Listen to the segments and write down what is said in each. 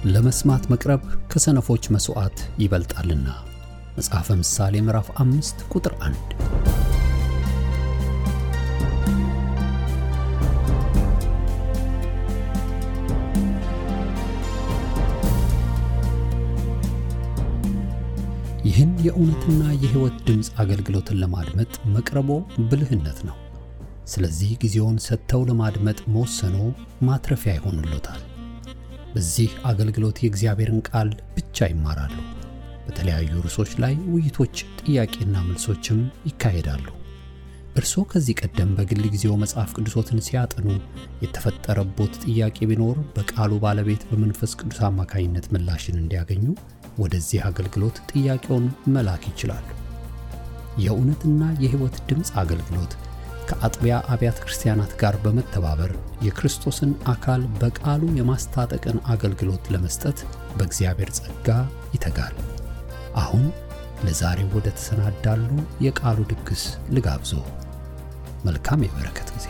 ለመስማት መቅረብ ከሰነፎች መስዋዕት ይበልጣልና። መጽሐፈ ምሳሌ ምዕራፍ 5 ቁጥር 1። ይህን የእውነትና የሕይወት ድምጽ አገልግሎትን ለማድመጥ መቅረቦ ብልህነት ነው። ስለዚህ ጊዜውን ሰጥተው ለማድመጥ መወሰኖ ማትረፊያ ይሆንልዎታል። በዚህ አገልግሎት የእግዚአብሔርን ቃል ብቻ ይማራሉ። በተለያዩ ርዕሶች ላይ ውይይቶች፣ ጥያቄና መልሶችም ይካሄዳሉ። እርስዎ ከዚህ ቀደም በግል ጊዜው መጽሐፍ ቅዱሶትን ሲያጠኑ የተፈጠረቦት ጥያቄ ቢኖር በቃሉ ባለቤት በመንፈስ ቅዱስ አማካኝነት ምላሽን እንዲያገኙ ወደዚህ አገልግሎት ጥያቄውን መላክ ይችላሉ። የእውነትና የሕይወት ድምጽ አገልግሎት ከአጥቢያ አብያተ ክርስቲያናት ጋር በመተባበር የክርስቶስን አካል በቃሉ የማስታጠቅን አገልግሎት ለመስጠት በእግዚአብሔር ጸጋ ይተጋል። አሁን ለዛሬው ወደ ተሰናዳሉ የቃሉ ድግስ ልጋብዞ። መልካም የበረከት ጊዜ።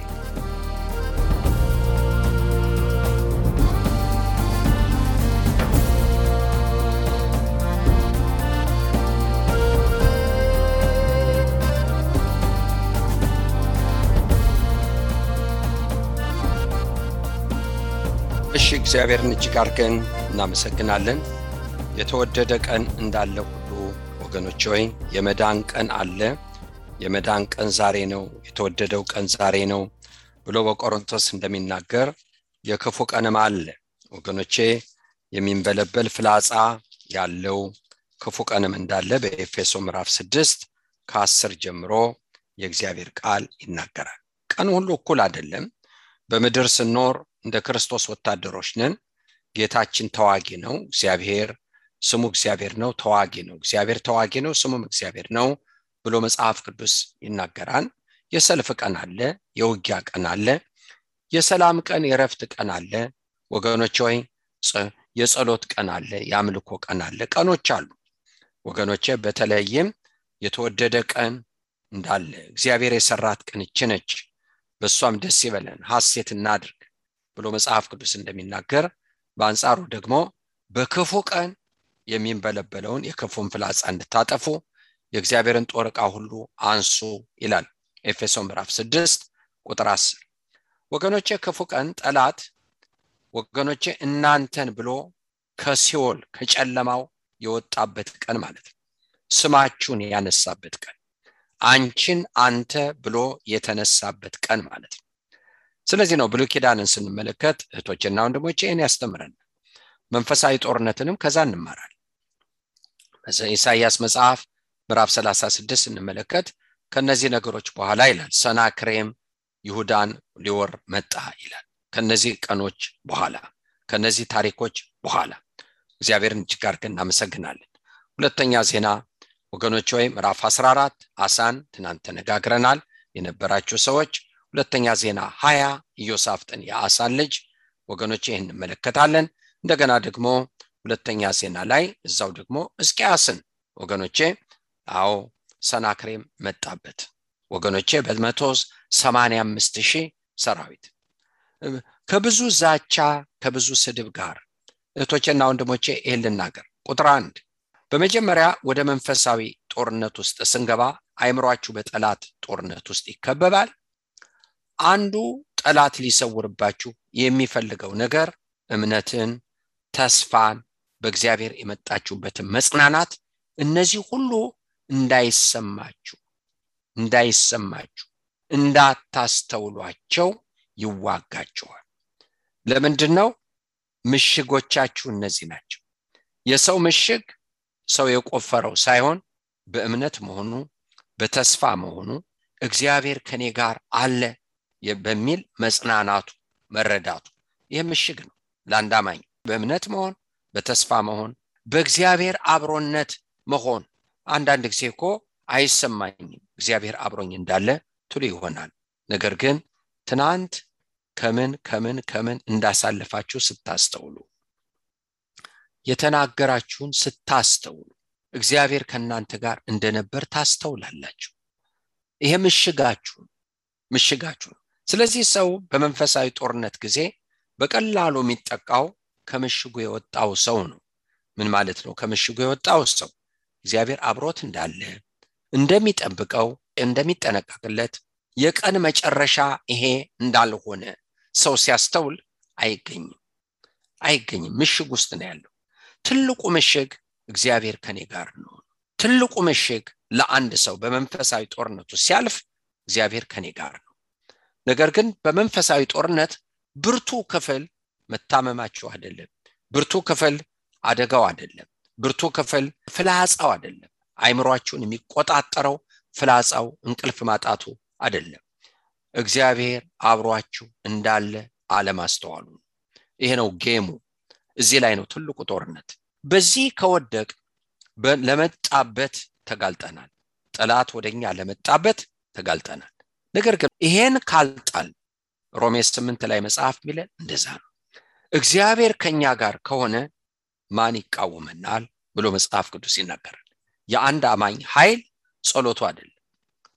እሺ፣ እግዚአብሔርን እጅግ አድርገን እናመሰግናለን። የተወደደ ቀን እንዳለ ሁሉ ወገኖች ሆይ የመዳን ቀን አለ። የመዳን ቀን ዛሬ ነው፣ የተወደደው ቀን ዛሬ ነው ብሎ በቆሮንቶስ እንደሚናገር የክፉ ቀንም አለ። ወገኖቼ የሚንበለበል ፍላጻ ያለው ክፉ ቀንም እንዳለ በኤፌሶ ምዕራፍ 6 ከ10 ጀምሮ የእግዚአብሔር ቃል ይናገራል። ቀን ሁሉ እኩል አይደለም። በምድር ስንኖር እንደ ክርስቶስ ወታደሮች ነን። ጌታችን ተዋጊ ነው። እግዚአብሔር ስሙ እግዚአብሔር ነው፣ ተዋጊ ነው። እግዚአብሔር ተዋጊ ነው፣ ስሙም እግዚአብሔር ነው ብሎ መጽሐፍ ቅዱስ ይናገራል። የሰልፍ ቀን አለ፣ የውጊያ ቀን አለ፣ የሰላም ቀን፣ የረፍት ቀን አለ። ወገኖች ሆይ የጸሎት ቀን አለ፣ የአምልኮ ቀን አለ። ቀኖች አሉ ወገኖቼ። በተለይም የተወደደ ቀን እንዳለ እግዚአብሔር የሰራት ቀን እቺ ነች፣ በሷም ደስ ይበለን ሐሴት እናድርግ ብሎ መጽሐፍ ቅዱስ እንደሚናገር፣ በአንጻሩ ደግሞ በክፉ ቀን የሚንበለበለውን የክፉን ፍላጻ እንድታጠፉ የእግዚአብሔርን ጦር ዕቃ ሁሉ አንሱ ይላል ኤፌሶ ምዕራፍ 6 ቁጥር 10። ወገኖቼ ክፉ ቀን ጠላት ወገኖቼ እናንተን ብሎ ከሲኦል ከጨለማው የወጣበት ቀን ማለት ነው። ስማችሁን ያነሳበት ቀን፣ አንቺን አንተ ብሎ የተነሳበት ቀን ማለት ነው። ስለዚህ ነው ብሉይ ኪዳንን ስንመለከት እህቶችና ወንድሞቼ እኔ ያስተምረን መንፈሳዊ ጦርነትንም ከዛ እንማራለን። በኢሳይያስ መጽሐፍ ምዕራፍ 36 ስንመለከት ከነዚህ ነገሮች በኋላ ይላል ሰናክሬም ይሁዳን ሊወር መጣ ይላል። ከነዚህ ቀኖች በኋላ ከነዚህ ታሪኮች በኋላ እግዚአብሔርን እጅግ አድርገን እናመሰግናለን። ሁለተኛ ዜና ወገኖች ሆይ ምዕራፍ 14 አሳን ትናንት ተነጋግረናል የነበራችሁ ሰዎች። ሁለተኛ ዜና 20 ኢዮሳፍጥን የአሳን ልጅ ወገኖቼ ይህን እንመለከታለን። እንደገና ደግሞ ሁለተኛ ዜና ላይ እዛው ደግሞ ሕዝቅያስን ወገኖቼ አዎ ሰናክሬም መጣበት ወገኖቼ በ185,000 ሰራዊት ከብዙ ዛቻ ከብዙ ስድብ ጋር እህቶቼና ወንድሞቼ ይህን ልናገር። ቁጥር 1 በመጀመሪያ ወደ መንፈሳዊ ጦርነት ውስጥ ስንገባ አይምሯችሁ በጠላት ጦርነት ውስጥ ይከበባል። አንዱ ጠላት ሊሰውርባችሁ የሚፈልገው ነገር እምነትን፣ ተስፋን፣ በእግዚአብሔር የመጣችሁበትን መጽናናት፣ እነዚህ ሁሉ እንዳይሰማችሁ እንዳታስተውሏቸው ይዋጋቸዋል። ለምንድነው? ምሽጎቻችሁ እነዚህ ናቸው። የሰው ምሽግ ሰው የቆፈረው ሳይሆን በእምነት መሆኑ፣ በተስፋ መሆኑ፣ እግዚአብሔር ከኔ ጋር አለ በሚል መጽናናቱ መረዳቱ ይህ ምሽግ ነው ለአንድ አማኝ። በእምነት መሆን፣ በተስፋ መሆን፣ በእግዚአብሔር አብሮነት መሆን። አንዳንድ ጊዜ እኮ አይሰማኝም እግዚአብሔር አብሮኝ እንዳለ ትሉ ይሆናል። ነገር ግን ትናንት ከምን እንዳሳለፋችሁ ስታስተውሉ፣ የተናገራችሁን ስታስተውሉ እግዚአብሔር ከናንተ ጋር እንደነበር ታስተውላላችሁ። ይሄ ምሽጋችሁ ነው። ስለዚህ ሰው በመንፈሳዊ ጦርነት ጊዜ በቀላሉ የሚጠቃው ከምሽጉ የወጣው ሰው ነው። ምን ማለት ነው? ከምሽጉ የወጣው ሰው እግዚአብሔር አብሮት እንዳለ እንደሚጠብቀው እንደሚጠነቀቅለት የቀን መጨረሻ ይሄ እንዳልሆነ ሰው ሲያስተውል አይገኝም። ምሽግ ውስጥ ነው ያለው። ትልቁ ምሽግ እግዚአብሔር ከኔ ጋር ነው። ትልቁ ምሽግ ለአንድ ሰው በመንፈሳዊ ጦርነቱ ሲያልፍ እግዚአብሔር ከኔ ጋር ነው። ነገር ግን በመንፈሳዊ ጦርነት ብርቱ ክፍል መታመማችሁ አይደለም፣ ብርቱ ክፍል አደጋው አይደለም፣ ብርቱ ክፍል ፍላጻው አይደለም፣ አይምሮአችሁን የሚቆጣጠረው ፍላጻው እንቅልፍ ማጣቱ አይደለም። እግዚአብሔር አብሮአችሁ እንዳለ አለማስተዋሉ። ይሄ ነው ጌሙ። እዚህ ላይ ነው ትልቁ ጦርነት። በዚህ ከወደቅ ለመጣበት ተጋልጠናል። ጠላት ወደኛ ለመጣበት ተጋልጠናል። ነገር ግን ይሄን ካልጣል ሮሜ 8 ላይ መጽሐፍ ሚለን እንደዛ ነው። እግዚአብሔር ከኛ ጋር ከሆነ ማን ይቃወመናል ብሎ መጽሐፍ ቅዱስ ይናገራል። የአንድ አማኝ ኃይል ጸሎቱ አይደለም።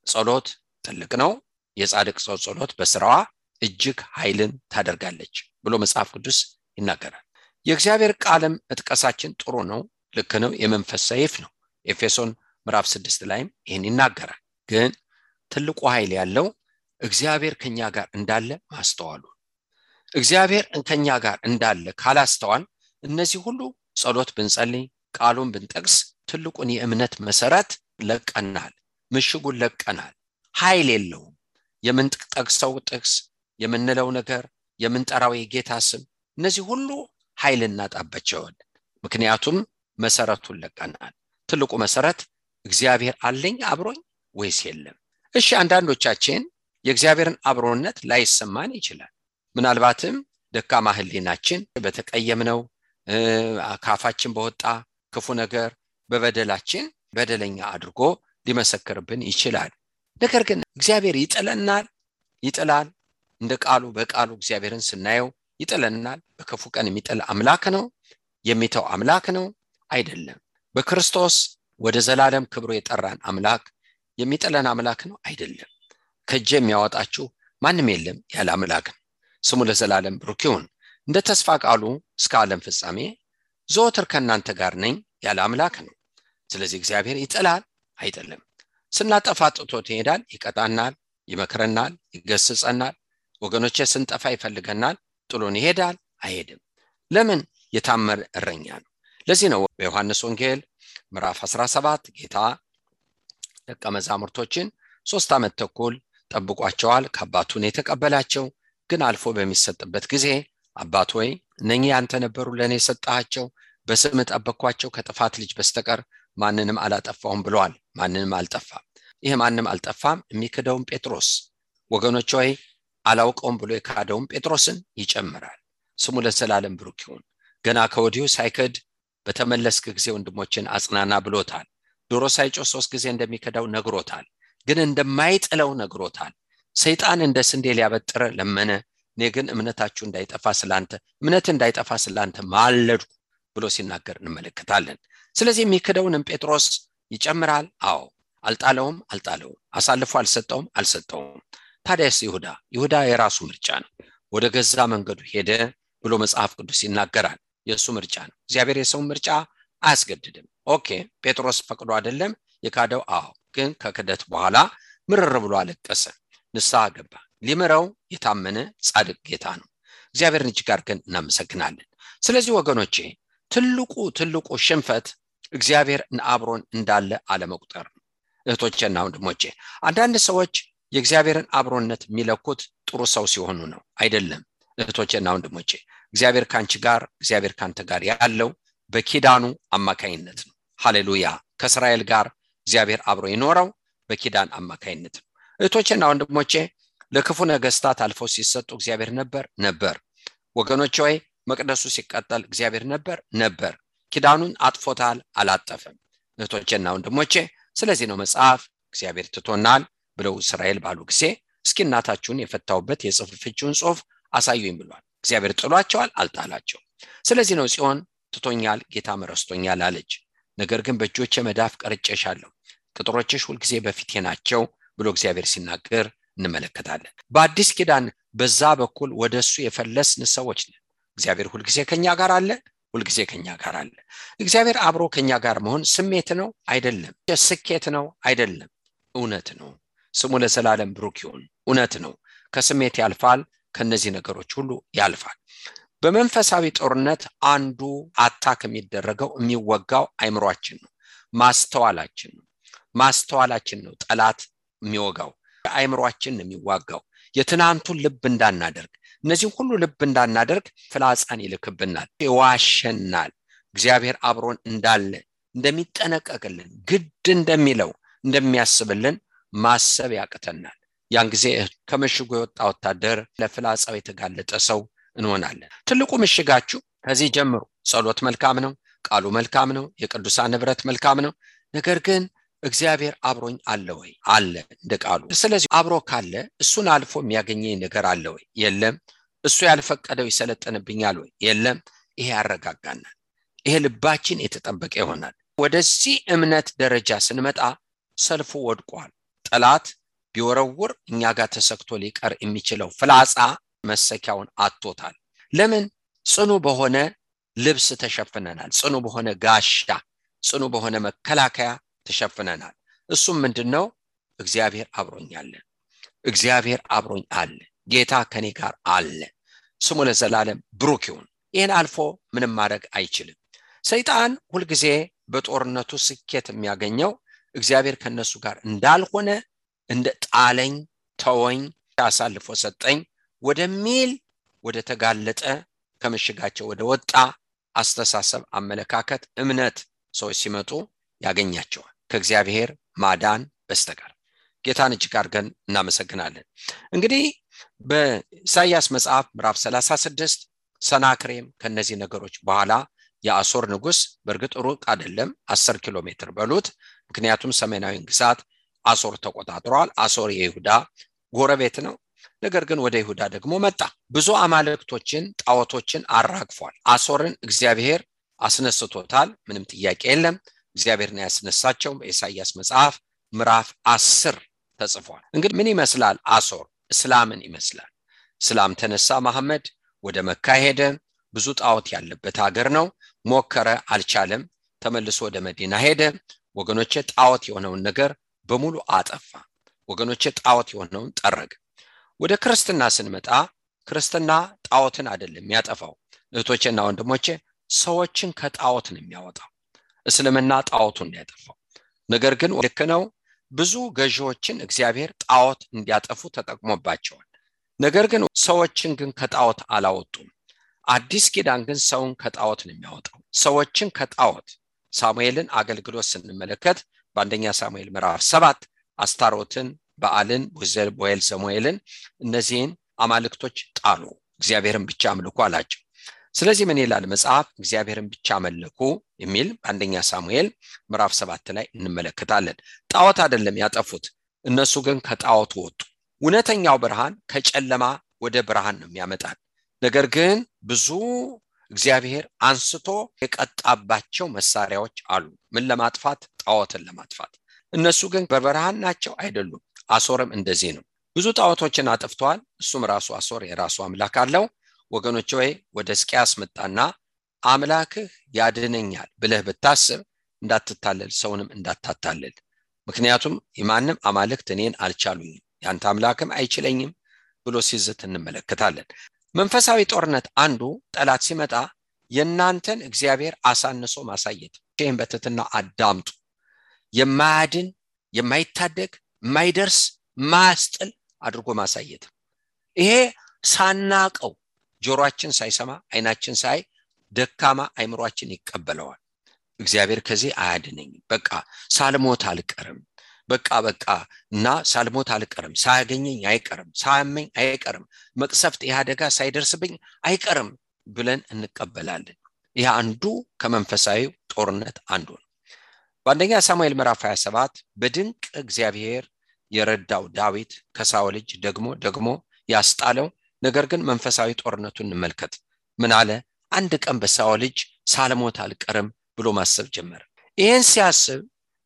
ጸሎት ትልቅ ነው። የጻድቅ ሰው ጸሎት በስራዋ እጅግ ኃይልን ታደርጋለች ብሎ መጽሐፍ ቅዱስ ይናገራል። የእግዚአብሔር ቃልም እጥቀሳችን ጥሩ ነው፣ ልክ ነው፣ የመንፈስ ሰይፍ ነው። ኤፌሶን ምዕራፍ 6 ላይም ይሄን ይናገራል። ግን ትልቁ ኃይል ያለው እግዚአብሔር ከኛ ጋር እንዳለ ማስተዋሉ። እግዚአብሔር ከኛ ጋር እንዳለ ካላስተዋል እነዚህ ሁሉ ጸሎት ብንጸልይ ቃሉን ብንጠቅስ ትልቁን የእምነት መሰረት ለቀናል፣ ምሽጉን ለቀናል። ኃይል የለውም። የምንጠቅሰው ጥቅስ፣ የምንለው ነገር፣ የምንጠራው የጌታ ስም፣ እነዚህ ሁሉ ኃይል እናጣባቸዋል። ምክንያቱም መሰረቱን ለቀናል። ትልቁ መሰረት እግዚአብሔር አለኝ አብሮኝ ወይስ የለም? እሺ አንዳንዶቻችን የእግዚአብሔርን አብሮነት ላይሰማን ይችላል። ምናልባትም ደካማ ህሊናችን በተቀየምነው ካፋችን በወጣ ክፉ ነገር በበደላችን በደለኛ አድርጎ ሊመሰክርብን ይችላል። ነገር ግን እግዚአብሔር ይጥላል። እንደ ቃሉ በቃሉ እግዚአብሔርን ስናየው ይጥለናል። በክፉ ቀን የሚጥል አምላክ ነው፣ የሚተው አምላክ ነው አይደለም። በክርስቶስ ወደ ዘላለም ክብሩ የጠራን አምላክ የሚጥለን አምላክ ነው አይደለም። ከእጄ የሚያወጣችሁ ማንም የለም ያለ አምላክ ነው። ስሙ ለዘላለም ብሩክ ይሁን። እንደ ተስፋ ቃሉ እስከ ዓለም ፍጻሜ ዘወትር ከእናንተ ጋር ነኝ ያለ አምላክ ነው። ስለዚህ እግዚአብሔር ይጥላል አይደለም። ስናጠፋ ጥቶት ይሄዳል፣ ይቀጣናል፣ ይመክረናል፣ ይገስጸናል። ወገኖቼ ስንጠፋ ይፈልገናል፣ ጥሎን ይሄዳል አይሄድም። ለምን? የታመነ እረኛ ነው። ለዚህ ነው በዮሐንስ ወንጌል ምዕራፍ 17 ጌታ ደቀ መዛሙርቶችን 3 ዓመት ተኩል ጠብቋቸዋል። ከአባቱ ነው የተቀበላቸው። ግን አልፎ በሚሰጥበት ጊዜ አባት ሆይ እነኚህ አንተ ነበሩ ለኔ ሰጣቸው፣ በስም ጠበቅኳቸው፣ ከጥፋት ልጅ በስተቀር ማንንም አላጠፋሁም ብለዋል። ማንንም አልጠፋም። ይሄ ማንንም አልጠፋም የሚክደውን ጴጥሮስ ወገኖች ሆይ አላውቀውም ብሎ የካደውን ጴጥሮስን ይጨምራል። ስሙ ለዘላለም ብሩክ ይሁን። ገና ከወዲሁ ሳይክድ በተመለስክ ጊዜ ወንድሞችን አጽናና ብሎታል። ዶሮ ሳይጮህ 3 ጊዜ እንደሚከዳው ነግሮታል። ግን እንደማይጥለው ነግሮታል። ሰይጣን እንደ ስንዴ ሊያበጥር ለመነ። እኔ ግን እምነታችሁ እንዳይጠፋ ስላንተ ማለድኩ ብሎ ሲናገር እንመለከታለን። ስለዚህ የሚክደውንም ጴጥሮስ ይጨምራል። አዎ አልጣለውም፣ አሳልፎ አልሰጠውም። ታዲያስ ይሁዳ የራሱ ምርጫ ነው። ወደ ገዛ መንገዱ ሄደ ብሎ መጽሐፍ ቅዱስ ይናገራል። የሱ ምርጫ ነው። እግዚአብሔር የሰው ምርጫ አያስገድድም። ኦኬ ጴጥሮስ ፈቅዶ አይደለም የካደው። አዎ ግን ከክደት በኋላ ምርር ብሎ አለቀሰ፣ ንስሐ ገባ። ሊምረው የታመነ ጻድቅ ጌታ ነው። እግዚአብሔርን እጅግ አድርገን እናመሰግናለን። ስለዚህ ወገኖቼ ትልቁ ሽንፈት እግዚአብሔር አብሮን እንዳለ አለመቁጠር ነው። እህቶቼና ወንድሞቼ አንዳንድ ሰዎች የእግዚአብሔርን አብሮነት የሚለኩት ጥሩ ሰው ሲሆኑ ነው። አይደለም እህቶቼና ወንድሞቼ፣ እግዚአብሔር ካንቺ ጋር እግዚአብሔር ካንተ ጋር ያለው በኪዳኑ አማካይነት ነው። ሃሌሉያ። ከእስራኤል ጋር እግዚአብሔር አብሮ ይኖረው በኪዳን አማካይነት ነው። እህቶቼና ወንድሞቼ ለክፉ ነገስታት አልፈው ሲሰጡ እግዚአብሔር ነበር። ወገኖቼ ሆይ መቅደሱ ሲቀጠል እግዚአብሔር ነበር። ኪዳኑን አጥፎታል፣ አላጠፈም። እህቶቼና ወንድሞቼ ስለዚህ ነው መጽሐፍ እግዚአብሔር ትቶናል ብለው እስራኤል ባሉ ጊዜ እስኪ እናታችሁን የፈታውበት የጽሑፍችሁን ጽሑፍ አሳዩኝ ብሏል። እግዚአብሔር ጥሏቸዋል፣ አልጣላቸው። ስለዚህ ነው ጽዮን ትቶኛል ጌታ መረስቶኛል አለች። ነገር ግን በእጆቼ መዳፍ ቀርጬሻለሁ፣ ቅጥሮችሽ ሁልጊዜ በፊቴ ናቸው ብሎ እግዚአብሔር ሲናገር እንመለከታለን። በአዲስ ኪዳን በዛ በኩል ወደሱ የፈለስን ሰዎች ነን። እግዚአብሔር ሁልጊዜ ከኛ ጋር አለ። ሁልጊዜ ከኛ ጋር አለ። እግዚአብሔር አብሮ ከኛ ጋር መሆን ስሜት ነው አይደለም። ስኬት ነው አይደለም። እውነት ነው። ስሙ ለዘላለም ብሩክ ይሁን። እውነት ነው። ከስሜት ያልፋል። ከነዚህ ነገሮች ሁሉ ያልፋል። በመንፈሳዊ ጦርነት አንዱ አታክ የሚደረገው የሚወጋው አይምሮአችን ነው። ማስተዋላችን ነው ጠላት የሚወጋው። አይምሮአችን ነው የሚዋጋው። የትናንቱን ልብ እንዳናደርግ፣ እነዚህ ሁሉ ልብ እንዳናደርግ ፍላጻን ይልክብናል፣ ይዋሸናል። እግዚአብሔር አብሮን እንዳለ እንደሚጠነቀቅልን፣ ግድ እንደሚለው እንደሚያስብልን ማሰብ ያቅተናል። ያን ጊዜ ከመሽጉ የወጣ ወታደር ለፍላጻው የተጋለጠ ሰው እንሆናለን። ትልቁ ምሽጋችሁ ከዚህ ጀምሮ ጸሎት መልካም ነው፣ ቃሉ መልካም ነው፣ የቅዱሳን ንብረት መልካም ነው። ነገር ግን እግዚአብሔር አብሮኝ አለ ወይ? አለ እንደ ቃሉ። ስለዚህ አብሮ ካለ እሱን አልፎ የሚያገኘኝ ነገር አለ ወይ? የለም። እሱ ያልፈቀደው ይሰለጥንብኛል ወይ? የለም። ይሄ ያረጋጋናል። ይሄ ልባችን የተጠበቀ ይሆናል። ወደዚህ እምነት ደረጃ ስንመጣ ሰልፉ ወድቋል። ጠላት ቢወረውር እኛ ጋር ተሰክቶ ሊቀር የሚችለው ፍላጻ መሰኪያውን አጥቶታል። ለምን? ጽኑ በሆነ ልብስ ተሸፍነናል። ጽኑ በሆነ ጋሻ፣ ጽኑ በሆነ መከላከያ ተሸፍነናል። እሱም ምንድነው? እግዚአብሔር አብሮኝ አለ። እግዚአብሔር አብሮኝ አለ። ጌታ ከኔ ጋር አለ። ስሙ ለዘላለም ብሩክ ይሁን። ይሄን አልፎ ምንም ማድረግ አይችልም። ሰይጣን ሁልጊዜ በጦርነቱ ስኬት የሚያገኘው እግዚአብሔር ከነሱ ጋር እንዳልሆነ፣ እንደ ጣለኝ፣ ተወኝ፣ አሳልፎ ሰጠኝ ወደሚል ወደ ተጋለጠ ከምሽጋቸው ወደ ወጣ አስተሳሰብ፣ አመለካከት፣ እምነት ሰዎች ሲመጡ ያገኛቸዋል ከእግዚአብሔር ማዳን በስተቀር። ጌታን እጅግ አድርገን እናመሰግናለን። እንግዲህ በኢሳይያስ መጽሐፍ ምዕራፍ 36 ሰናክሬም ከነዚህ ነገሮች በኋላ የአሶር ንጉስ፣ በእርግጥ ሩቅ አይደለም 10 ኪሎ ሜትር በሉት፣ ምክንያቱም ሰሜናዊ ግዛት አሶር ተቆጣጥሯል። አሶር የይሁዳ ጎረቤት ነው። ነገር ግን ወደ ይሁዳ ደግሞ መጣ። ብዙ አማልክቶችን፣ ጣዖቶችን አራግፏል። አሶርን እግዚአብሔር አስነስቶታል። ምንም ጥያቄ የለም። እግዚአብሔር ነው ያስነሳቸው። በኢሳይያስ መጽሐፍ ምዕራፍ 10 ተጽፏል። እንግዲህ ምን ይመስላል አሶር? እስላምን ይመስላል። እስላም ተነሳ፣ መሐመድ ወደ መካ ሄደ። ብዙ ጣዖት ያለበት ሀገር ነው። ሞከረ፣ አልቻለም። ተመልሶ ወደ መዲና ሄደ። ወገኖቼ ጣዖት የሆነውን ነገር በሙሉ አጠፋ። ወገኖቼ ጣዖት የሆነውን ጠረገ። ወደ ክርስትና ስንመጣ ክርስትና ጣዖትን አይደለም የሚያጠፋው። እህቶቼና ወንድሞቼ ሰዎችን ከጣዖት ነው የሚያወጣው። እስልምና ጣዖቱን ያጠፋው። ነገር ግን ልክ ነው፣ ብዙ ገዢዎችን እግዚአብሔር ጣዖት እንዲያጠፉ ተጠቅሞባቸዋል። ነገር ግን ሰዎችን ግን ከጣዖት አላወጡም። አዲስ ኪዳን ግን ሰውን ከጣዖት ነው የሚያወጣው። ሰዎችን ከጣዖት ሳሙኤልን አገልግሎት ስንመለከት በአንደኛ ሳሙኤል ምዕራፍ 7 አስታሮትን፣ በአልን፣ ቦዔል ዘሞኤልን እነዚህን አማልክቶች ጣሉ፣ እግዚአብሔርን ብቻ አምልኩ አላቸው። ስለዚህ ምን ይላል መጽሐፍ? እግዚአብሔርን ብቻ አመለኩ የሚል በአንደኛ ሳሙኤል ምዕራፍ 7 ላይ እንመለከታለን። ጣዖት አይደለም ያጠፉት፣ እነሱ ግን ከጣዖት ወጡ። እውነተኛው ብርሃን ከጨለማ ወደ ብርሃን ነው የሚያመጣን። ነገር ግን ብዙ እግዚአብሔር አንስቶ የቀጣባቸው መሳሪያዎች አሉ። ምን ለማጥፋት? ጣዖትን ለማጥፋት። እነሱ ግን በብርሃን ናቸው አይደሉም። አሶርም እንደዚህ ነው። ብዙ ጣዖቶችን አጥፍቷል። እሱም ራሱ አሶር የራሱ አምላክ አለው። ወገኖች ሆይ ወደ ሕዝቅያስ መጣና አምላክህ ያድነኛል ብለህ ብታስብ እንዳትታለል፣ ሰውንም እንዳታታለል። ምክንያቱም የማንም አማልክት እኔን አልቻሉኝም፣ ያንተ አምላክም አይችለኝም ብሎ ሲዝት እንመለከታለን። መንፈሳዊ ጦርነት አንዱ ጠላት ሲመጣ የናንተን እግዚአብሔር አሳንሶ ማሳየት። ይህን በትህትና አዳምጡ። የማያድን፣ የማይታደግ፣ የማይደርስ፣ ማያስጥል አድርጎ ማሳየት። ይሄ ሳናቀው ጆሮአችን ሳይሰማ አይናችን ሳይ ደካማ አይምሮአችን ይቀበለዋል። እግዚአብሔር ከዚህ አያድነኝም፣ በቃ ሳልሞት አልቀርም፣ በቃ እና ሳልሞት አልቀርም፣ ሳያገኘኝ አይቀርም፣ ሳያመኝ አይቀርም፣ መቅሰፍት ያደጋ ሳይደርስብኝ አይቀርም ብለን እንቀበላለን። ይሄ አንዱ ከመንፈሳዊ ጦርነት አንዱ ነው። በአንደኛ ሳሙኤል ምዕራፍ 27 በድንቅ እግዚአብሔር የረዳው ዳዊት ከሳኦል እጅ ደግሞ ያስጣለው። ነገር ግን መንፈሳዊ ጦርነቱን እንመልከት። ምን አለ? አንድ ቀን በሳኦል እጅ ሳልሞት አልቀርም ብሎ ማሰብ ጀመረ። ይሄን ሲያስብ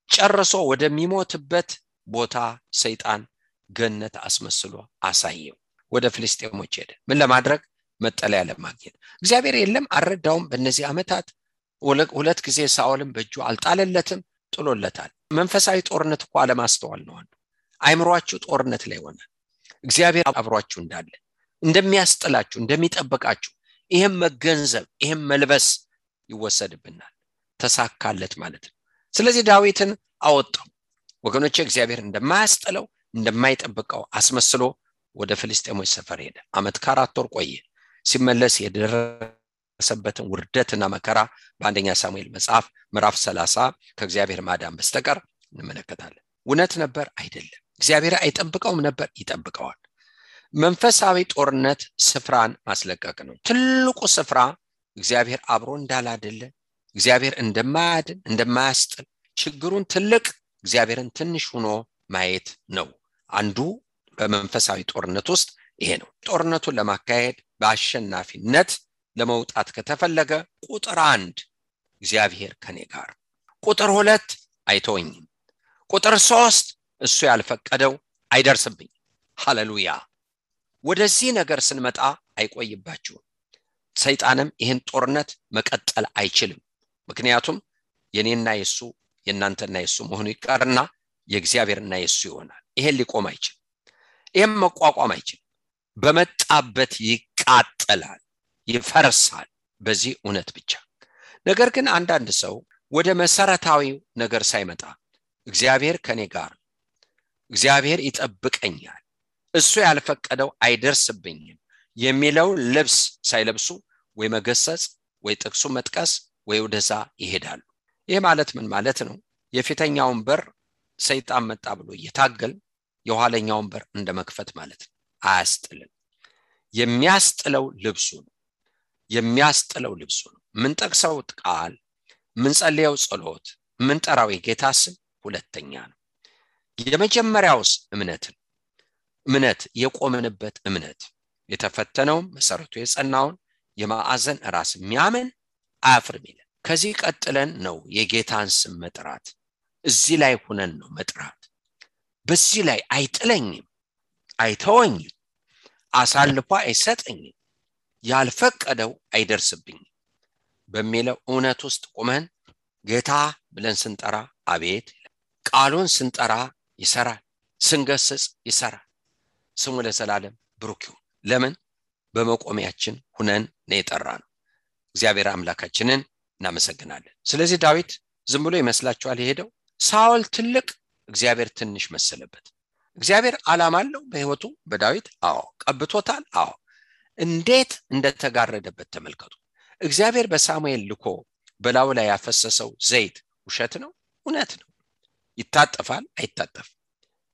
ጨርሶ ወደሚሞትበት ቦታ ሰይጣን ገነት አስመስሎ አሳየው። ወደ ፍልስጤሞች ሄደ። ምን ለማድረግ? መጠለያ ለማግኘት። እግዚአብሔር የለም አልረዳውም በእነዚህ ዓመታት። ሁለት ጊዜ ሳኦልን በእጁ አልጣለለትም፣ ጥሎለታል። መንፈሳዊ ጦርነት እኮ አለማስተዋል ነው አንዱ። አይምሮአችሁ ጦርነት ላይ ሆነ። እግዚአብሔር አብሯችሁ እንዳለ እንደሚያስጥላችሁ እንደሚጠብቃችሁ ይሄም መገንዘብ ይሄም መልበስ ይወሰድብናል። ተሳካለት ማለት ነው። ስለዚህ ዳዊትን አወጣው። ወገኖቼ እግዚአብሔር እንደማያስጥለው እንደማይጠብቀው አስመስሎ ወደ ፍልስጤሞች ሰፈር ሄደ። ዓመት ከ4 ወር ቆየ። ሲመለስ የደረሰበትን ውርደትና መከራ በአንደኛ ሳሙኤል መጽሐፍ ምዕራፍ 30 ከእግዚአብሔር ማዳን በስተቀር እንመለከታለን። እውነት ነበር አይደለም። እግዚአብሔር አይጠብቀውም ነበር፣ ይጠብቀዋል። መንፈሳዊ ጦርነት ስፍራን ማስለቀቅ ነው። ትልቁ ስፍራ እግዚአብሔር አብሮ እንዳላደለ፣ እግዚአብሔር እንደማያድን እንደማያስጥል፣ ችግሩን ትልቅ እግዚአብሔርን ትንሽ ሆኖ ማየት ነው። አንዱ በመንፈሳዊ ጦርነት ውስጥ ይሄ ነው። ጦርነቱን ለማካሄድ በአሸናፊነት ለመውጣት ከተፈለገ ቁጥር 1 እግዚአብሔር ከኔ ጋር፣ ቁጥር 2 አይተወኝም፣ ቁጥር 3 እሱ ያልፈቀደው አይደርስብኝ። ሃሌሉያ። ወደዚህ ነገር ስንመጣ አይቆይባችሁም። ሰይጣንም ይህን ጦርነት መቀጠል አይችልም። ምክንያቱም የኔና የሱ የናንተና የሱ መሆኑ ይቀርና የእግዚአብሔርና የሱ ይሆናል። ይሄን ሊቆም አይችልም። ይሄን መቋቋም አይችልም። በመጣበት ይቃጠላል፣ ይፈርሳል። በዚህ እውነት ብቻ። ነገር ግን አንዳንድ ሰው ወደ መሰረታዊው ነገር ሳይመጣ እግዚአብሔር ከኔ ጋር፣ እግዚአብሔር ይጠብቀኛል፣ እሱ ያልፈቀደው አይደርስብኝም የሚለው ልብስ ሳይለብሱ ወይ መገሰጽ ወይ ጥቅሱ መጥቀስ ወይ ወደዛ ይሄዳሉ። ይሄ ማለት ምን ማለት ነው? የፊተኛውን በር ሰይጣን መጣ ብሎ እየታገል የኋለኛውን በር እንደመክፈት ማለት ነው። አያስጥልም። የሚያስጥለው ልብሱ ነው። የሚያስጥለው ልብሱ ነው። ምን ጠቅሰው ቃል፣ ምን ጸልየው ጸሎት፣ ምን ጠራው የጌታ ስም ሁለተኛ ነው። የመጀመሪያውስ እምነት የቆመንበት እምነት የተፈተነው መሰረቱ የጸናውን የማዕዘን ራስ የሚያምን አያፍርም ይላል። ከዚህ ቀጥለን ነው የጌታን ስም መጥራት። እዚህ ላይ ሆነን ነው መጥራት። በዚህ ላይ አይጥለኝም፣ አይተወኝም፣ አሳልፎ አይሰጠኝም፣ ያልፈቀደው አይደርስብኝም በሚለው እውነት ውስጥ ቆመን ጌታ ብለን ስንጠራ አቤት፣ ቃሉን ስንጠራ ይሰራል፣ ስንገስጽ ይሰራል። ስሙ ለዘላለም ብሩክ ይሁን። ለምን? በመቆሚያችን ሆነን ነው የጠራነው። እግዚአብሔር አምላካችንን እናመሰግናለን። ስለዚህ ዳዊት ዝም ብሎ ይመስላችኋል የሄደው? ሳኦል ትልቅ፣ እግዚአብሔር ትንሽ መሰለበት። እግዚአብሔር ዓላማ አለው በህይወቱ በዳዊት። አዎ ቀብቶታል። አዎ እንዴት እንደተጋረደበት ተመልከቱ። እግዚአብሔር በሳሙኤል ልኮ በላዩ ላይ ያፈሰሰው ዘይት ውሸት ነው? እውነት ነው። ይታጠፋል? አይታጠፍም።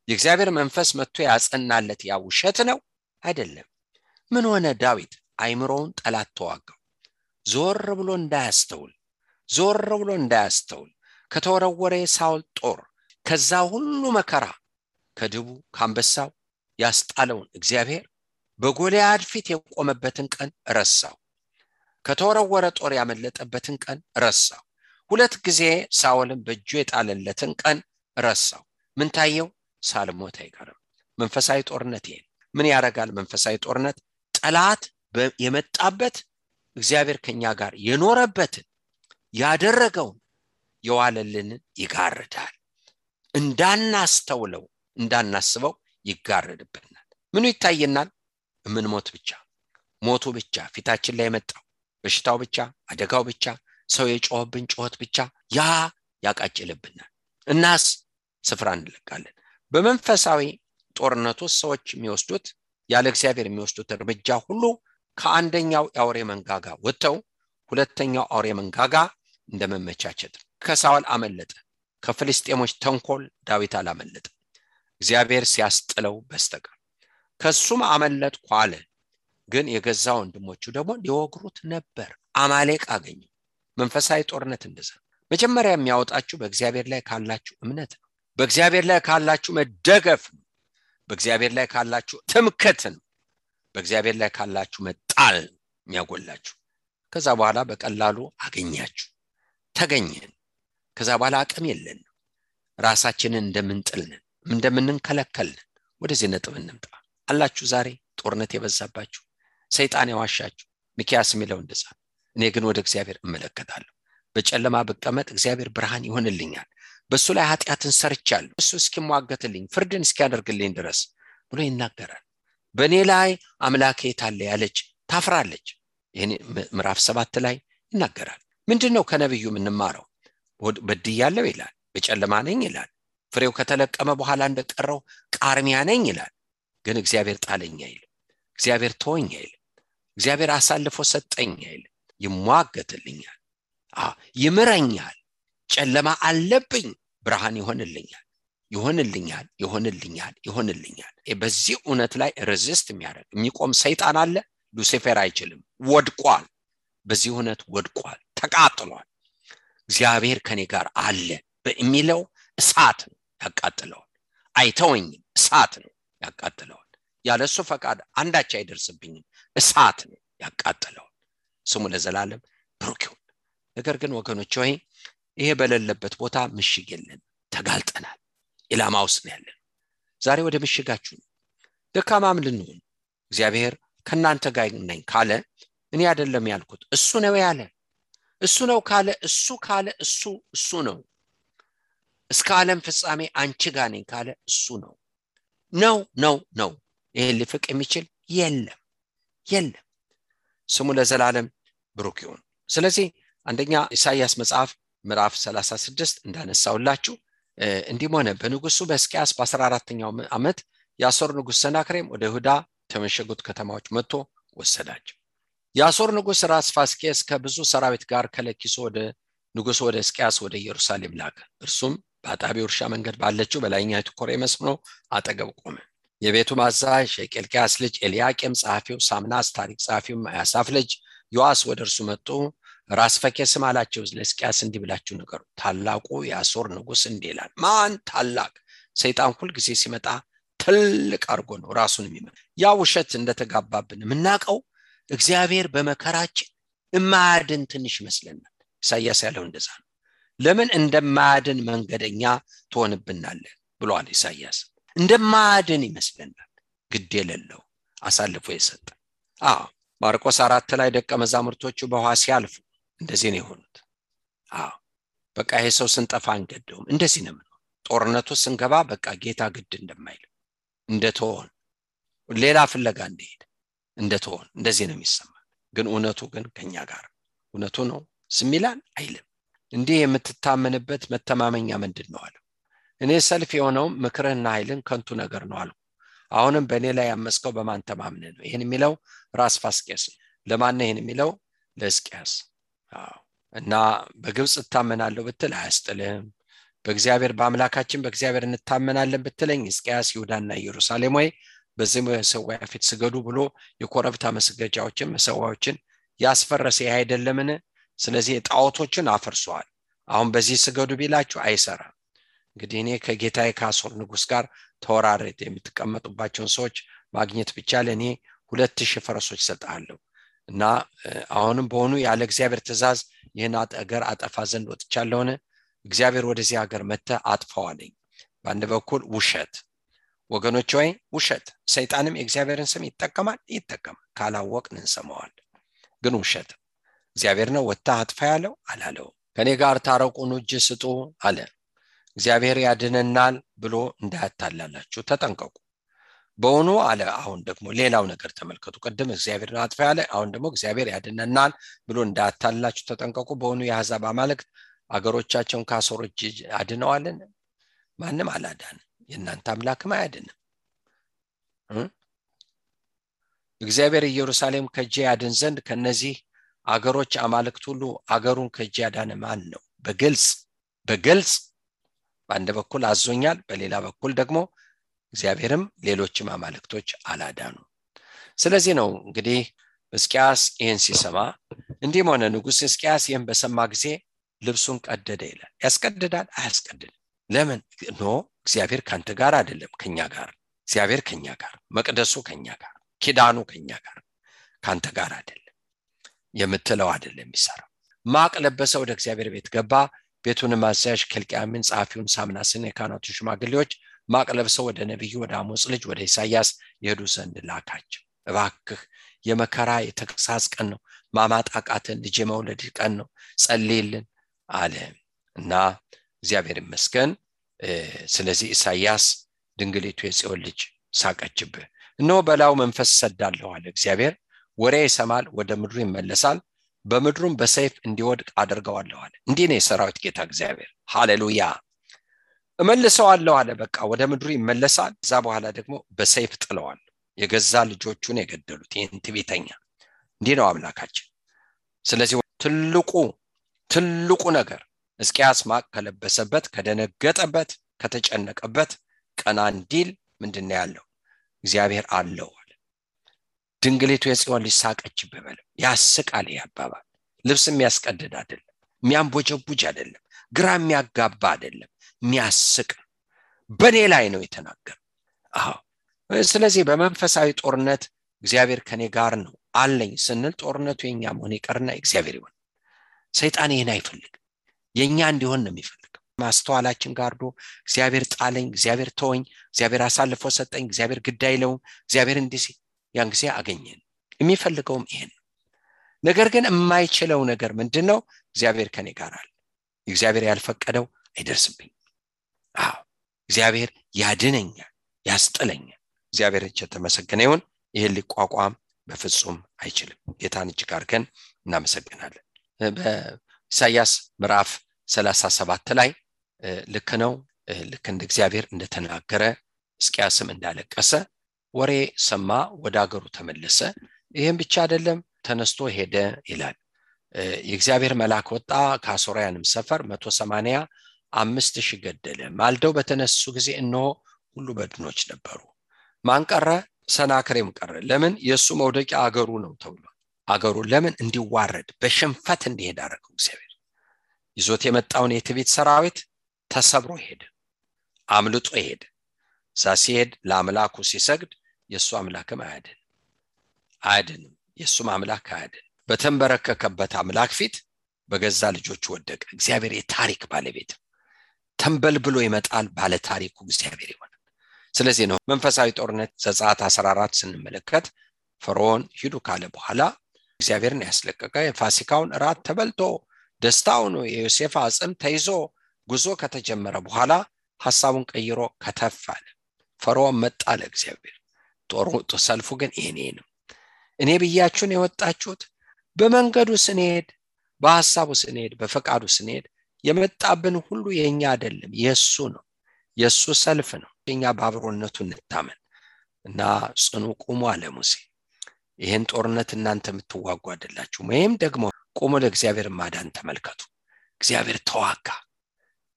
የእግዚአብሔር መንፈስ መጥቶ ያጸናለት ያ ውሸት ነው? አይደለም። ምን ሆነ? ዳዊት አይምሮውን ጠላት ተዋጋው። ዞር ብሎ እንዳያስተውል ከተወረወረ ሳኦል ጦር፣ ከዛ ሁሉ መከራ፣ ከድቡ ከአንበሳው ያስጣለውን እግዚአብሔር በጎልያድ ፊት የቆመበትን ቀን ረሳው። ከተወረወረ ጦር ያመለጠበትን ቀን ረሳው። 2 ጊዜ ሳኦልን በእጁ የጣለለትን ቀን ረሳው። ምን ታየው? ሳልሞት አይቀርም። መንፈሳዊ ጦርነት ይሄ ምን ያረጋል? መንፈሳዊ ጦርነት ጠላት የመጣበት እግዚአብሔር ከኛ ጋር የኖረበትን ያደረገውን የዋለልንን ይጋርዳል። እንዳናስተውለው እንዳናስበው ይጋርድብናል። ምኑ ይታየናል? ምን ሞት ብቻ፣ ሞቱ ብቻ፣ ፊታችን ላይ መጣው በሽታው ብቻ፣ አደጋው ብቻ፣ ሰው የጮህብን ጮህት ብቻ ያ ያቃጭልብናል። እናስ ስፍራ እንለቃለን። በመንፈሳዊ ጦርነቱ ሰዎች የሚወስዱት ያለ እግዚአብሔር የሚወስዱት እርምጃ ሁሉ ከአንደኛው አውሬ መንጋጋ ወጥተው ሁለተኛው አውሬ መንጋጋ እንደመመቻቸት። ከሳኦል አመለጠ፣ ከፍልስጤሞች ተንኮል ዳዊት አላመለጠ እግዚአብሔር ሲያስጥለው በስተቀር። ከሱም አመለጥኩ አለ፣ ግን የገዛ ወንድሞቹ ደግሞ ሊወግሩት ነበር። አማሌቅ አገኘ። መንፈሳዊ ጦርነት እንደዛ መጀመሪያ የሚያወጣችሁ በእግዚአብሔር ላይ ካላችሁ እምነት ነው። በእግዚአብሔር ላይ ካላችሁ መደገፍ ነው። በእግዚአብሔር ላይ ካላችሁ ትምክህት ነው። በእግዚአብሔር ላይ ካላችሁ መጣል የሚያጎላችሁ። ከዛ በኋላ በቀላሉ አገኛችሁ፣ ተገኘን። ከዛ በኋላ አቅም የለን፣ ራሳችንን እንደምንጥልን እንደምንንከለከልን። ወደዚህ ነጥብ እንምጣ። አላችሁ ዛሬ ጦርነት የበዛባችሁ ሰይጣን ያዋሻችሁ። ሚክያስ የሚለው እንደዛ። እኔ ግን ወደ እግዚአብሔር እመለከታለሁ። በጨለማ ብቀመጥ እግዚአብሔር ብርሃን ይሆንልኛል። በሱ ላይ ኃጢአትን ሰርቻለሁ እሱ እስኪሟገትልኝ ፍርድን እስኪያደርግልኝ ድረስ ብሎ ይናገራል። በእኔ ላይ አምላኬ የታለ ያለች ታፍራለች። ይሄን ምዕራፍ 7 ላይ ይናገራል። ምንድነው ከነብዩ የምንማረው? በድያለሁ ይላል፣ በጨለማ ነኝ ይላል፣ ፍሬው ከተለቀመ በኋላ እንደቀረው ቃርሚያ ነኝ ይላል። ግን እግዚአብሔር ጣለኝ አይልም፣ እግዚአብሔር ተወኝ አይልም፣ እግዚአብሔር አሳልፎ ሰጠኝ አይልም። ይሟገትልኛል፣ ይምረኛል። ጨለማ አለብኝ፣ ብርሃን ይሆንልኛል፣ ይሆንልኛል፣ ይሆንልኛል፣ ይሆንልኛል። በዚህ እውነት ላይ ሬዚስት የሚያደርግ የሚቆም ሰይጣን አለ? ሉሲፌር አይችልም፣ ወድቋል። በዚህ እውነት ወድቋል፣ ተቃጥሏል። እግዚአብሔር ከኔ ጋር አለ በሚለው እሳት ነው ያቃጥለዋል። አይተወኝም፣ እሳት ነው ያቃጥለዋል። ያለሱ ፈቃድ አንዳች አይደርስብኝም፣ እሳት ነው ያቃጥለዋል። ስሙ ለዘላለም ብሩክ ይሁን። ነገር ግን ወገኖች ሆይ ይሄ በሌለበት ቦታ ምሽግ የለን፣ ተጋልጠናል፣ ኢላማ ውስጥ ነው ያለን። ዛሬ ወደ ምሽጋችሁ ነው። ደካማም ልንሆን እግዚአብሔር ከናንተ ጋር ነኝ ካለ እኔ አይደለም ያልኩት እሱ ነው ያለ። እሱ ነው ካለ እሱ ነው። እስከ ዓለም ፍጻሜ አንቺ ጋር ነኝ ካለ እሱ ነው። ነው ይሄን ሊፍቅ የሚችል የለም። ስሙ ለዘላለም ብሩክ ይሁን። ስለዚህ አንደኛ ኢሳይያስ መጽሐፍ ምዕራፍ 36 እንዳነሳውላችሁ እንዲህ ሆነ። በንጉሱ በሕዝቅያስ በ14ኛው ዓመት የአሦር ንጉስ ሰናክሬም ወደ ይሁዳ ተመሸጉት ከተማዎች መጥቶ ወሰዳቸው። የአሦር ንጉስ ራስ ፋስኬስ ከብዙ ሰራዊት ጋር ከለኪሶ ወደ ንጉሱ ወደ ሕዝቅያስ ወደ ኢየሩሳሌም ላከ። እርሱም በአጣቢው እርሻ መንገድ ባለችው በላይኛይቱ ኮሬ መስኖ አጠገብ ቆመ። የቤቱ አዛዥ የኬልቅያስ ልጅ ኤልያቄም፣ ጸሐፊው ሳምናስ፣ ታሪክ ጸሐፊው አሳፍ ልጅ ዮአስ ወደ እርሱ መጡ። ራስ ፋስኬስም አላቸው፣ ለሕዝቅያስ እንዲህ ብላችሁ ንገሩ፣ ታላቁ የአሦር ንጉስ እንዲህ ይላል። ማን ታላቅ? ሰይጣን ሁል ጊዜ ሲመጣ ትልቅ አርጎ ነው ራሱን የሚመጣ። ያ ውሸት እንደተጋባብን የምናውቀው እግዚአብሔር በመከራችን እማያድን ትንሽ ይመስለናል። ኢሳይያስ ያለው እንደዛ ነው። ለምን እንደማያድን መንገደኛ ትሆንብናለህ ብሏል ኢሳይያስ። እንደማያድን ይመስለናል፣ ግድ የሌለው አሳልፎ የሰጠ። ማርቆስ 4 ላይ ደቀ መዛሙርቶቹ በውሃ ሲያልፉ እንደዚህ ነው የሆኑት። በቃ ይሄ ሰው ስንጠፋ አንገደውም፣ እንደዚህ ነው። ጦርነቱ ስንገባ በቃ ጌታ ግድ እንደማይል እንደተሆን ሌላ ፍለጋ እንደሄደ እንደተሆን እንደዚህ ነው የሚሰማ። ግን እውነቱ ግን ከኛ ጋር እውነቱ ነው ስሚላን አይልም። እንዲህ የምትታመንበት መተማመኛ ምንድነው አለው። እኔ ሰልፍ የሆነው ምክርህና ኃይልን ከንቱ ነገር ነው አልኩ። አሁንም በእኔ ላይ ያመስከው በማን ተማምነህ ነው? ይሄን የሚለው ራስ ፋስኬስ። ለማን ነው ይሄን የሚለው? ለሕዝቅያስ። እና በግብጽ እታመናለሁ ብትል አያስጥልህም። በእግዚአብሔር በአምላካችን በእግዚአብሔር እንታመናለን ብትለኝ ሕዝቅያስ ይሁዳና ኢየሩሳሌም ወይ በዚህ መሰዊያ ፊት ስገዱ ብሎ የኮረብታ መስገጃዎችን መሰዊያዎችን ያስፈረሰ አይደለምን? ስለዚህ ጣዖቶችን አፈርሷል። አሁን በዚህ ስገዱ ቢላችሁ አይሰራም። እንግዲህ እኔ ከጌታዬ ከአሦር ንጉስ ጋር ተወራረድ የምትቀመጡባቸውን ሰዎች ማግኘት ብቻ ለኔ 2000 ፈረሶች ሰጣለሁ እና አሁንም በሆኑ ያለ እግዚአብሔር ትእዛዝ ይህን አገር አጠፋ ዘንድ ወጥቻለሁ። እግዚአብሔር ወደዚህ ሀገር መተ አጥፋዋለኝ። በአንድ በኩል ውሸት ወገኖች ሆይ ውሸት። ሰይጣንም የእግዚአብሔርን ስም ይጠቀማል። ካላወቅን እንሰማዋለን። ግን ውሸት እግዚአብሔር ነው ወጣ አጥፋ ያለው አላለው። ከኔ ጋር ታረቁኑ እጅ ስጡ አለ። እግዚአብሔር ያድነናል ብሎ እንዳያታላላችሁ ተጠንቀቁ። በእውኑ አለ። አሁን ደግሞ ሌላው ነገር ተመልከቱ። ቀደም እግዚአብሔር አጥፋ ያለ፣ አሁን ደግሞ እግዚአብሔር ያድነናል ብሎ እንዳያታላላችሁ ተጠንቀቁ። በእውኑ የአሕዛብ አማልክት አገሮቻቸውን ከአሦር እጅ አድነዋልን? ማንም አላዳንም። የእናንተ አምላክም አያድንም። እግዚአብሔር ኢየሩሳሌም ከእጄ ያድን ዘንድ ከነዚህ አገሮች አማልክት ሁሉ አገሩን ከእጄ ያዳነ ማን ነው? በግልጽ በአንድ በኩል አዞኛል፣ በሌላ በኩል ደግሞ እግዚአብሔርም ሌሎችም አማልክቶች አላዳኑ። ስለዚህ ነው እንግዲህ ሕዝቅያስ ይህን ሲሰማ እንዲህ ሆነ። ንጉሥ ሕዝቅያስ ይህን በሰማ ጊዜ ልብሱን ቀደደ ይላል። ያስቀድዳል? አያስቀድድም። ለምን? እግዚአብሔር ካንተ ጋር አይደለም፣ ከኛ ጋር። እግዚአብሔር ከኛ ጋር፣ መቅደሱ ከኛ ጋር፣ ኪዳኑ ከኛ ጋር፣ ካንተ ጋር አይደለም የምትለው አይደለም የሚሰራው። ማቅ ለበሰ፣ ወደ እግዚአብሔር ቤት ገባ። ቤቱንም አዛዥ ኬልቅያምን፣ ጸሐፊውን ሳምናስን፣ የካህናቱ ሽማግሌዎች ማቅ ለብሰው ወደ ነብዩ ወደ አሞጽ ልጅ ወደ ኢሳይያስ ይሄዱ ዘንድ ላካቸው። እባክህ የመከራ የተግሳጽ ቀን ነው፣ ማማጣቃትን ልጅ መውለድ ቀን ነው፣ ጸልይልን አለ እና እግዚአብሔር ይመስገን። ስለዚህ ኢሳይያስ ድንግሊቱ የጽዮን ልጅ ሳቀችብህ፣ እነሆ በላዩ መንፈስ ሰዳለሁ አለ እግዚአብሔር። ወሬ ይሰማል፣ ወደ ምድሩ ይመለሳል፣ በምድሩም በሰይፍ እንዲወድቅ አደርገዋለሁ አለ። እንዲህ ነው የሰራዊት ጌታ እግዚአብሔር። ሃሌሉያ። እመልሰዋለሁ አለ። በቃ ወደ ምድሩ ይመለሳል። ከዛ በኋላ ደግሞ በሰይፍ ጥለዋል። የገዛ ልጆቹን የገደሉት ይህን ትዕቢተኛ። እንዲህ ነው አምላካችን። ስለዚህ ትልቁ ነገር ሕዝቅያስ ማቅ ከለበሰበት፣ ከደነገጠበት፣ ከተጨነቀበት ቀና እንዲል ምንድነው ያለው? እግዚአብሔር አለው አለ። ድንግሊቱ የጽዮን ልጅ ሳቀችብህ በለው። ያስቃል። ያባባል ልብስ የሚያስቀድድ አይደለም፣ የሚያንቦጀቡጅ አይደለም፣ ግራ የሚያጋባ አይደለም፣ የሚያስቅ በኔ ላይ ነው የተናገረው። ስለዚህ በመንፈሳዊ ጦርነት እግዚአብሔር ከኔ ጋር ነው አለኝ ስንል ጦርነቱ የኛ መሆን ይቀርና እግዚአብሔር ይሆን። ሰይጣን ይሄን አይፈልግም፣ የኛ እንዲሆን ነው የሚፈልገው። ማስተዋላችን ጋርዶ እግዚአብሔር ጣለኝ፣ እግዚአብሔር ተወኝ፣ እግዚአብሔር አሳልፎ ሰጠኝ፣ እግዚአብሔር ግድ አይለውም፣ እግዚአብሔር እንዲህ ያን ጊዜ አገኘን። የሚፈልገውም ይሄን። ነገር ግን የማይችለው ነገር ምንድነው? እግዚአብሔር ከኔ ጋር አለ። እግዚአብሔር ያልፈቀደው አይደርስብኝ። እግዚአብሔር ያድነኛል፣ ያስጥለኛል። እግዚአብሔር የተመሰገነ ይሁን። ይሄን ሊቋቋም በፍጹም አይችልም። ጌታን እጅግ አድርገን እናመሰግናለን። በኢሳይያስ ምዕራፍ 37 ላይ ልክ ነው፣ ልክ እንደ እግዚአብሔር እንደተናገረ ሕዝቅያስም እንዳለቀሰ ወሬ ሰማ፣ ወደ አገሩ ተመለሰ። ይሄን ብቻ አይደለም፣ ተነስቶ ሄደ ይላል። የእግዚአብሔር መልአክ ወጣ፣ ከአሦራውያንም ሰፈር 185,000 ገደለ። ማልደው በተነሱ ጊዜ እነሆ ሁሉ በድኖች ነበሩ። ማን ቀረ? ሰናክሬም ቀረ። ለምን? የሱ መውደቂያ አገሩ ነው ተብሏል። አገሩ ለምን እንዲዋረድ በሽንፈት እንዲሄድ አደረገው እግዚአብሔር። ይዞት የመጣውን የትዕቢት ሰራዊት ተሰብሮ ሄደ፣ አምልጦ ሄደ። እዛ ሲሄድ ለአምላኩ ሲሰግድ የሱ አምላክም አያድንም፣ የሱም አምላክ አያድን። በተንበረከከበት አምላክ ፊት በገዛ ልጆቹ ወደቀ። እግዚአብሔር የታሪክ ባለቤት ተንበልብሎ ይመጣል፣ ባለ ታሪኩ እግዚአብሔር ይሆናል። ስለዚህ ነው መንፈሳዊ ጦርነት ዘጸአት 14 ስንመለከት ፈርዖን ሂዱ ካለ በኋላ እግዚአብሔርን ያስለቀቀ የፋሲካውን እራት ተበልቶ ደስታው ነው የዮሴፍ አጽም ተይዞ ጉዞ ከተጀመረ በኋላ ሐሳቡን ቀይሮ ከተፋለ። ፈርዖን መጣ ለእግዚአብሔር። ሰልፉ ግን ይሄ ነው። እኔ ብያችሁ ነው የወጣችሁት። በመንገዱ ስንሄድ፣ በሐሳቡ ስንሄድ፣ በፈቃዱ ስንሄድ የመጣብን ሁሉ የኛ አይደለም፣ የሱ ነው፣ የሱ ሰልፍ ነው። እኛ ባብሮነቱ እንታመን እና ጽኑ ቁሙ አለ ሙሴ። ይሄን ጦርነት እናንተ የምትዋጉ አይደላችሁ፣ ወይም ደግሞ ቁሙ ለእግዚአብሔር ማዳን ተመልከቱ። እግዚአብሔር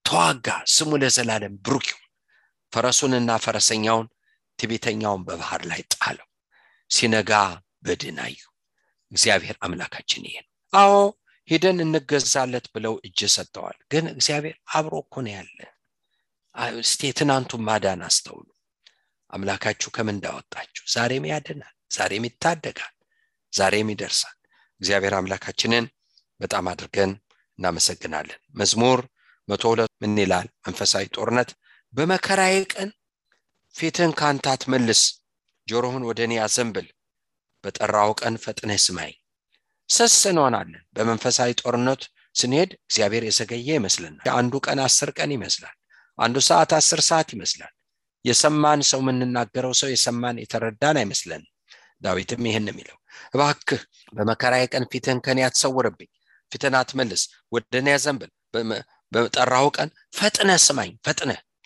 ተዋጋ፣ ስሙ ለዘላለም ብሩክ ይሁን። ፈረሱንና ፈረሰኛውን ትዕቢተኛውን በባህር ላይ ጣለው። ሲነጋ በድን አዩ። እግዚአብሔር አምላካችን ይሄ ነው። ሄደን እንገዛለት ብለው እጅ ሰጥተዋል። ግን እግዚአብሔር አብሮ እኮ ነው ያለ። እስቲ ትናንቱን ማዳን አስተውሉ። አምላካችሁ ከምን እንዳወጣችሁ ዛሬም ያድናል፣ ዛሬም ይታደጋል፣ ዛሬም ይደርሳል። እግዚአብሔር አምላካችንን በጣም አድርገን እናመሰግናለን። መዝሙር 102 ምን ይላል? መንፈሳዊ ጦርነት በመከራዬ ቀን ፊትህን ካንተ አትመልስ፣ ጆሮህን ወደኔ አዘንብል፣ በጠራው ቀን ፈጥነህ ስማኝ። ሰስ እንሆናለን። በመንፈሳዊ ጦርነት ስንሄድ እግዚአብሔር የዘገየ ይመስለናል። አንዱ ቀን 10 ቀን ይመስላል፣ አንዱ ሰዓት 10 ሰዓት ይመስላል። የሰማን ሰው የምንናገረው ሰው የሰማን የተረዳን አይመስለን። ዳዊትም ይሄን የሚለው እባክህ በመከራዬ ቀን ፊትህን ከኔ አትሰውርብኝ፣ ፊትህን አትመልስ፣ ወደኔ አዘንብል፣ በጠራው ቀን ፈጥነህ ስማኝ፣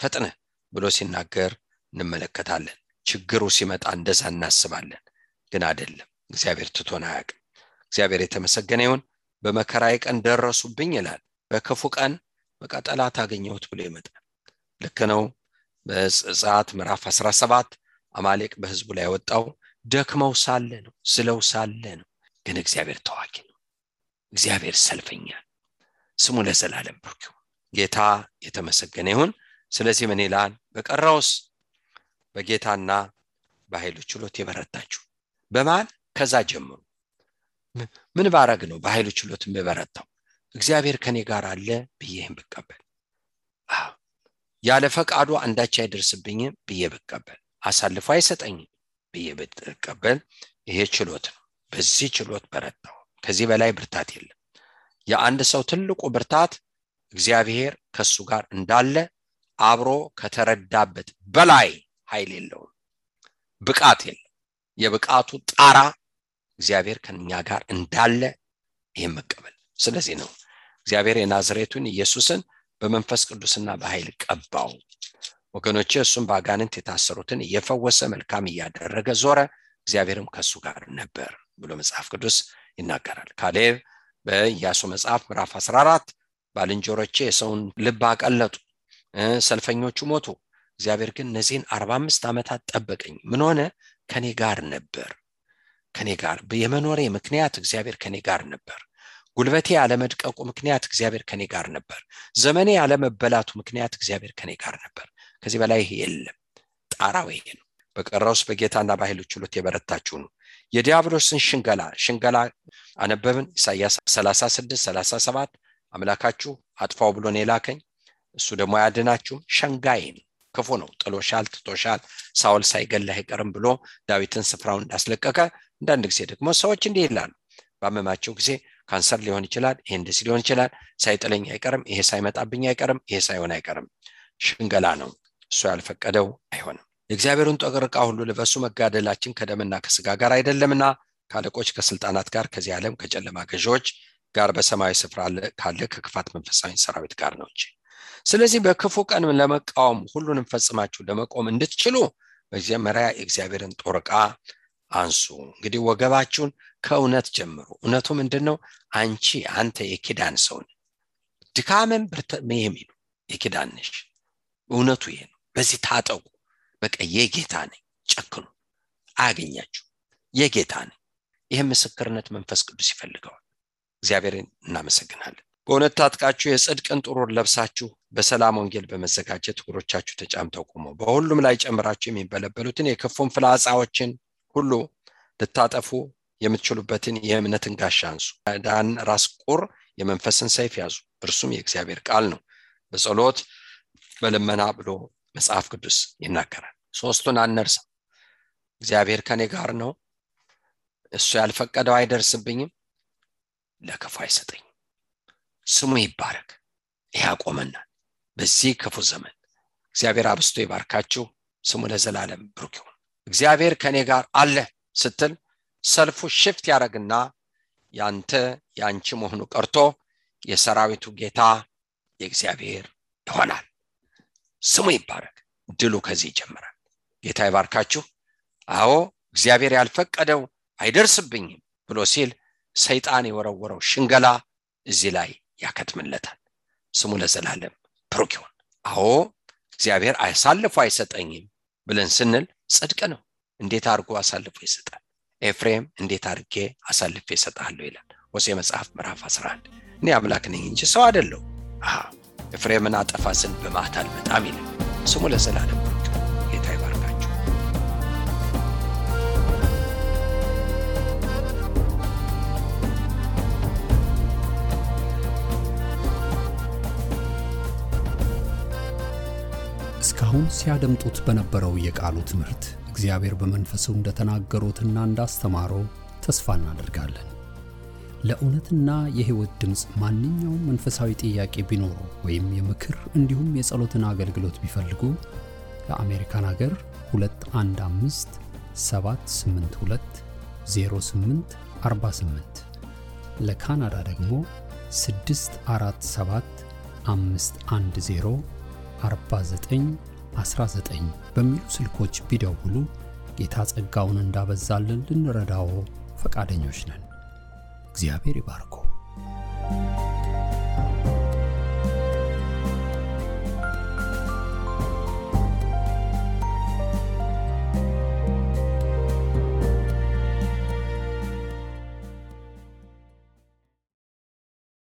ፈጥነህ ብሎ ሲናገር እንመለከታለን። ችግሩ ሲመጣ እንደዛ እናስባለን፣ ግን አይደለም። እግዚአብሔር ትቶን አያውቅም። እግዚአብሔር የተመሰገነ ይሁን። በመከራዬ ቀን ደረሱብኝ ይላል። በክፉ ቀን በቃ ጠላት አገኘሁት ብሎ ይመጣል። ልክ ነው። በዘጸአት ምዕራፍ 17 አማሌቅ በህዝቡ ላይ ወጣው ደክመው ሳለ ነው፣ ስለው ሳለ ነው። ግን እግዚአብሔር ተዋጊ ነው። እግዚአብሔር ሰልፈኛ፣ ስሙ ለዘላለም ብሩክ ይሁን። ጌታ የተመሰገነ ይሁን። ስለዚህ ምን ይላል? በቀረውስ በጌታና በኃይሉ ችሎት የበረታችሁ በማን? ከዛ ጀምሩ። ምን ባረግ ነው በኃይሉ ችሎት የበረታው? እግዚአብሔር ከኔ ጋር አለ ብዬም ብቀበል፣ ያለ ፈቃዱ አንዳች አይደርስብኝም ብዬ ብቀበል፣ አሳልፎ አይሰጠኝም፣ ብዬ ብትቀበል ይሄ ችሎት ነው። በዚህ ችሎት በረታው። ከዚህ በላይ ብርታት የለም። የአንድ ሰው ትልቁ ብርታት እግዚአብሔር ከሱ ጋር እንዳለ አብሮ ከተረዳበት በላይ ኃይል የለውም፣ ብቃት የለም። የብቃቱ ጣራ እግዚአብሔር ከኛ ጋር እንዳለ ይሄን መቀበል። ስለዚህ ነው እግዚአብሔር የናዝሬቱን ኢየሱስን በመንፈስ ቅዱስና በኃይል ቀባው። ወገኖቼ እሱም በአጋንንት የታሰሩትን እየፈወሰ መልካም እያደረገ ዞረ፣ እግዚአብሔርም ከሱ ጋር ነበር ብሎ መጽሐፍ ቅዱስ ይናገራል። ካሌብ በኢያሱ መጽሐፍ ምዕራፍ 14 ባልንጀሮቼ የሰውን ልብ አቀለጡ፣ ሰልፈኞቹ ሞቱ፣ እግዚአብሔር ግን እነዚህን 45 ዓመታት ጠበቀኝ። ምን ሆነ? ከኔ ጋር ነበር። ከኔ ጋር የመኖሬ ምክንያት እግዚአብሔር ከኔ ጋር ነበር። ጉልበቴ ያለመድቀቁ ምክንያት እግዚአብሔር ከኔ ጋር ነበር። ዘመኔ ያለመበላቱ ምክንያት እግዚአብሔር ከኔ ጋር ነበር። ከዚህ በላይ የለም። ጣራው ይሄ ነው። በቀረውስ በጌታና በኃይሉ ችሎት የበረታችሁ ነው። የዲያብሎስን ሽንገላ አነበብን። ኢሳይያስ 36:37 አምላካችሁ አጥፋው ብሎ ነው የላከኝ፣ እሱ ደግሞ ያድናችሁም። ሸንጋይ ነው፣ ክፉ ነው፣ ጥሎሻል፣ ትቶሻል፣ ሳውል ሳይገለህ አይቀርም ብሎ ዳዊትን ስፍራውን እንዳስለቀቀ አንዳንድ ጊዜ ደግሞ ሰዎች እንዲህ ይላሉ። ባመማቸው ጊዜ ካንሰር ሊሆን ይችላል፣ ይሄ እንደዚህ ሊሆን ይችላል፣ ሳይጥለኝ አይቀርም፣ ይሄ ሳይመጣብኝ አይቀርም፣ ይሄ ሳይሆን አይቀርም። ሽንገላ ነው። እሱ ያልፈቀደው አይሆንም። የእግዚአብሔርን ጦር ዕቃ ሁሉ ልበሱ፣ መጋደላችን ከደምና ከስጋ ጋር አይደለምና ከአለቆች ከስልጣናት ጋር ከዚህ ዓለም ከጨለማ ገዢዎች ጋር በሰማያዊ ስፍራ ካለ ከክፋት መንፈሳዊ ሰራዊት ጋር ነው እንጂ። ስለዚህ በክፉ ቀን ለመቃወም ሁሉንም ፈጽማችሁ ለመቆም እንድትችሉ በመጀመሪያ የእግዚአብሔርን ጦር ዕቃ አንሱ። እንግዲህ ወገባችሁን ከእውነት ጀምሩ። እውነቱ ምንድነው? አንተ የኪዳን ሰው ነህ። ድካምን ብርታትም የኪዳን ነሽ። እውነቱ ይሄ ነው። በዚህ ታጠቁ። በቃ የጌታ ነኝ፣ ጨክኑ፣ አያገኛችሁ፣ የጌታ ነኝ። ይሄ ምስክርነት መንፈስ ቅዱስ ይፈልገዋል። እግዚአብሔርን እናመሰግናለን። በእውነት ታጥቃችሁ የጽድቅን ጥሩር ለብሳችሁ በሰላም ወንጌል በመዘጋጀት እግሮቻችሁ ተጫምተው ቆሙ። በሁሉም ላይ ጨምራችሁ የሚበለበሉትን የክፉን ፍላጻዎችን ሁሉ ልታጠፉ የምትችሉበትን የእምነትን ጋሻ አንሱ። ዳን ራስ ቁር የመንፈስን ሰይፍ ያዙ፣ እርሱም የእግዚአብሔር ቃል ነው። በጸሎት በልመና ብሎ መጽሐፍ ቅዱስ ይናገራል። ሶስቱን አንርሳ። እግዚአብሔር ከኔ ጋር ነው፣ እሱ ያልፈቀደው አይደርስብኝም፣ ለክፉ አይሰጠኝም። ስሙ ይባረክ። ያቆመናል በዚህ ክፉ ዘመን። እግዚአብሔር አብስቶ ይባርካችሁ። ስሙ ለዘላለም ብሩክ ይሁን። እግዚአብሔር ከኔ ጋር አለ ስትል ሰልፉ ሽፍት ያደርግና ያንቺ መሆኑ ቀርቶ የሰራዊቱ ጌታ የእግዚአብሔር ይሆናል። ስሙ ይባረክ። ድሉ ከዚህ ይጀምራል። ጌታ ይባርካችሁ። አዎ እግዚአብሔር ያልፈቀደው አይደርስብኝም ብሎ ሲል ሰይጣን የወረወረው ሽንገላ እዚህ ላይ ያከትምለታል። ስሙ ለዘላለም ብሩክ ይሁን። አዎ እግዚአብሔር አሳልፎ አይሰጠኝም ብለን ስንል ጽድቅ ነው። እንዴት አድርጎ አሳልፎ ይሰጣል? ኤፍሬም እንዴት አድርጌ አሳልፌ እሰጣለሁ ይላል ሆሴዕ መጽሐፍ ምዕራፍ 11። እኔ አምላክ ነኝ እንጂ ሰው አይደለሁ። ኤፍሬምን አጠፋ ዘንድ በመዓት አልመጣም ይላል። ስሙ ለዘላለም ብሩክ ይሁን። ጌታ ይባርካችሁ። እስካሁን ሲያደምጡት በነበረው የቃሉ ትምህርት እግዚአብሔር በመንፈሱ እንደተናገሩትና እንዳስተማረው ተስፋ እናደርጋለን። ለእውነትና የሕይወት ድምጽ ማንኛውም መንፈሳዊ ጥያቄ ቢኖሩ ወይም የምክር እንዲሁም የጸሎትን አገልግሎት ቢፈልጉ ለአሜሪካን ሀገር 215-782-0848 ለካናዳ ደግሞ 647-510-4919 በሚሉ ስልኮች ቢደውሉ ጌታ ጸጋውን እንዳበዛልን ልንረዳው ፈቃደኞች ነን። እግዚአብሔር ይባርኩ።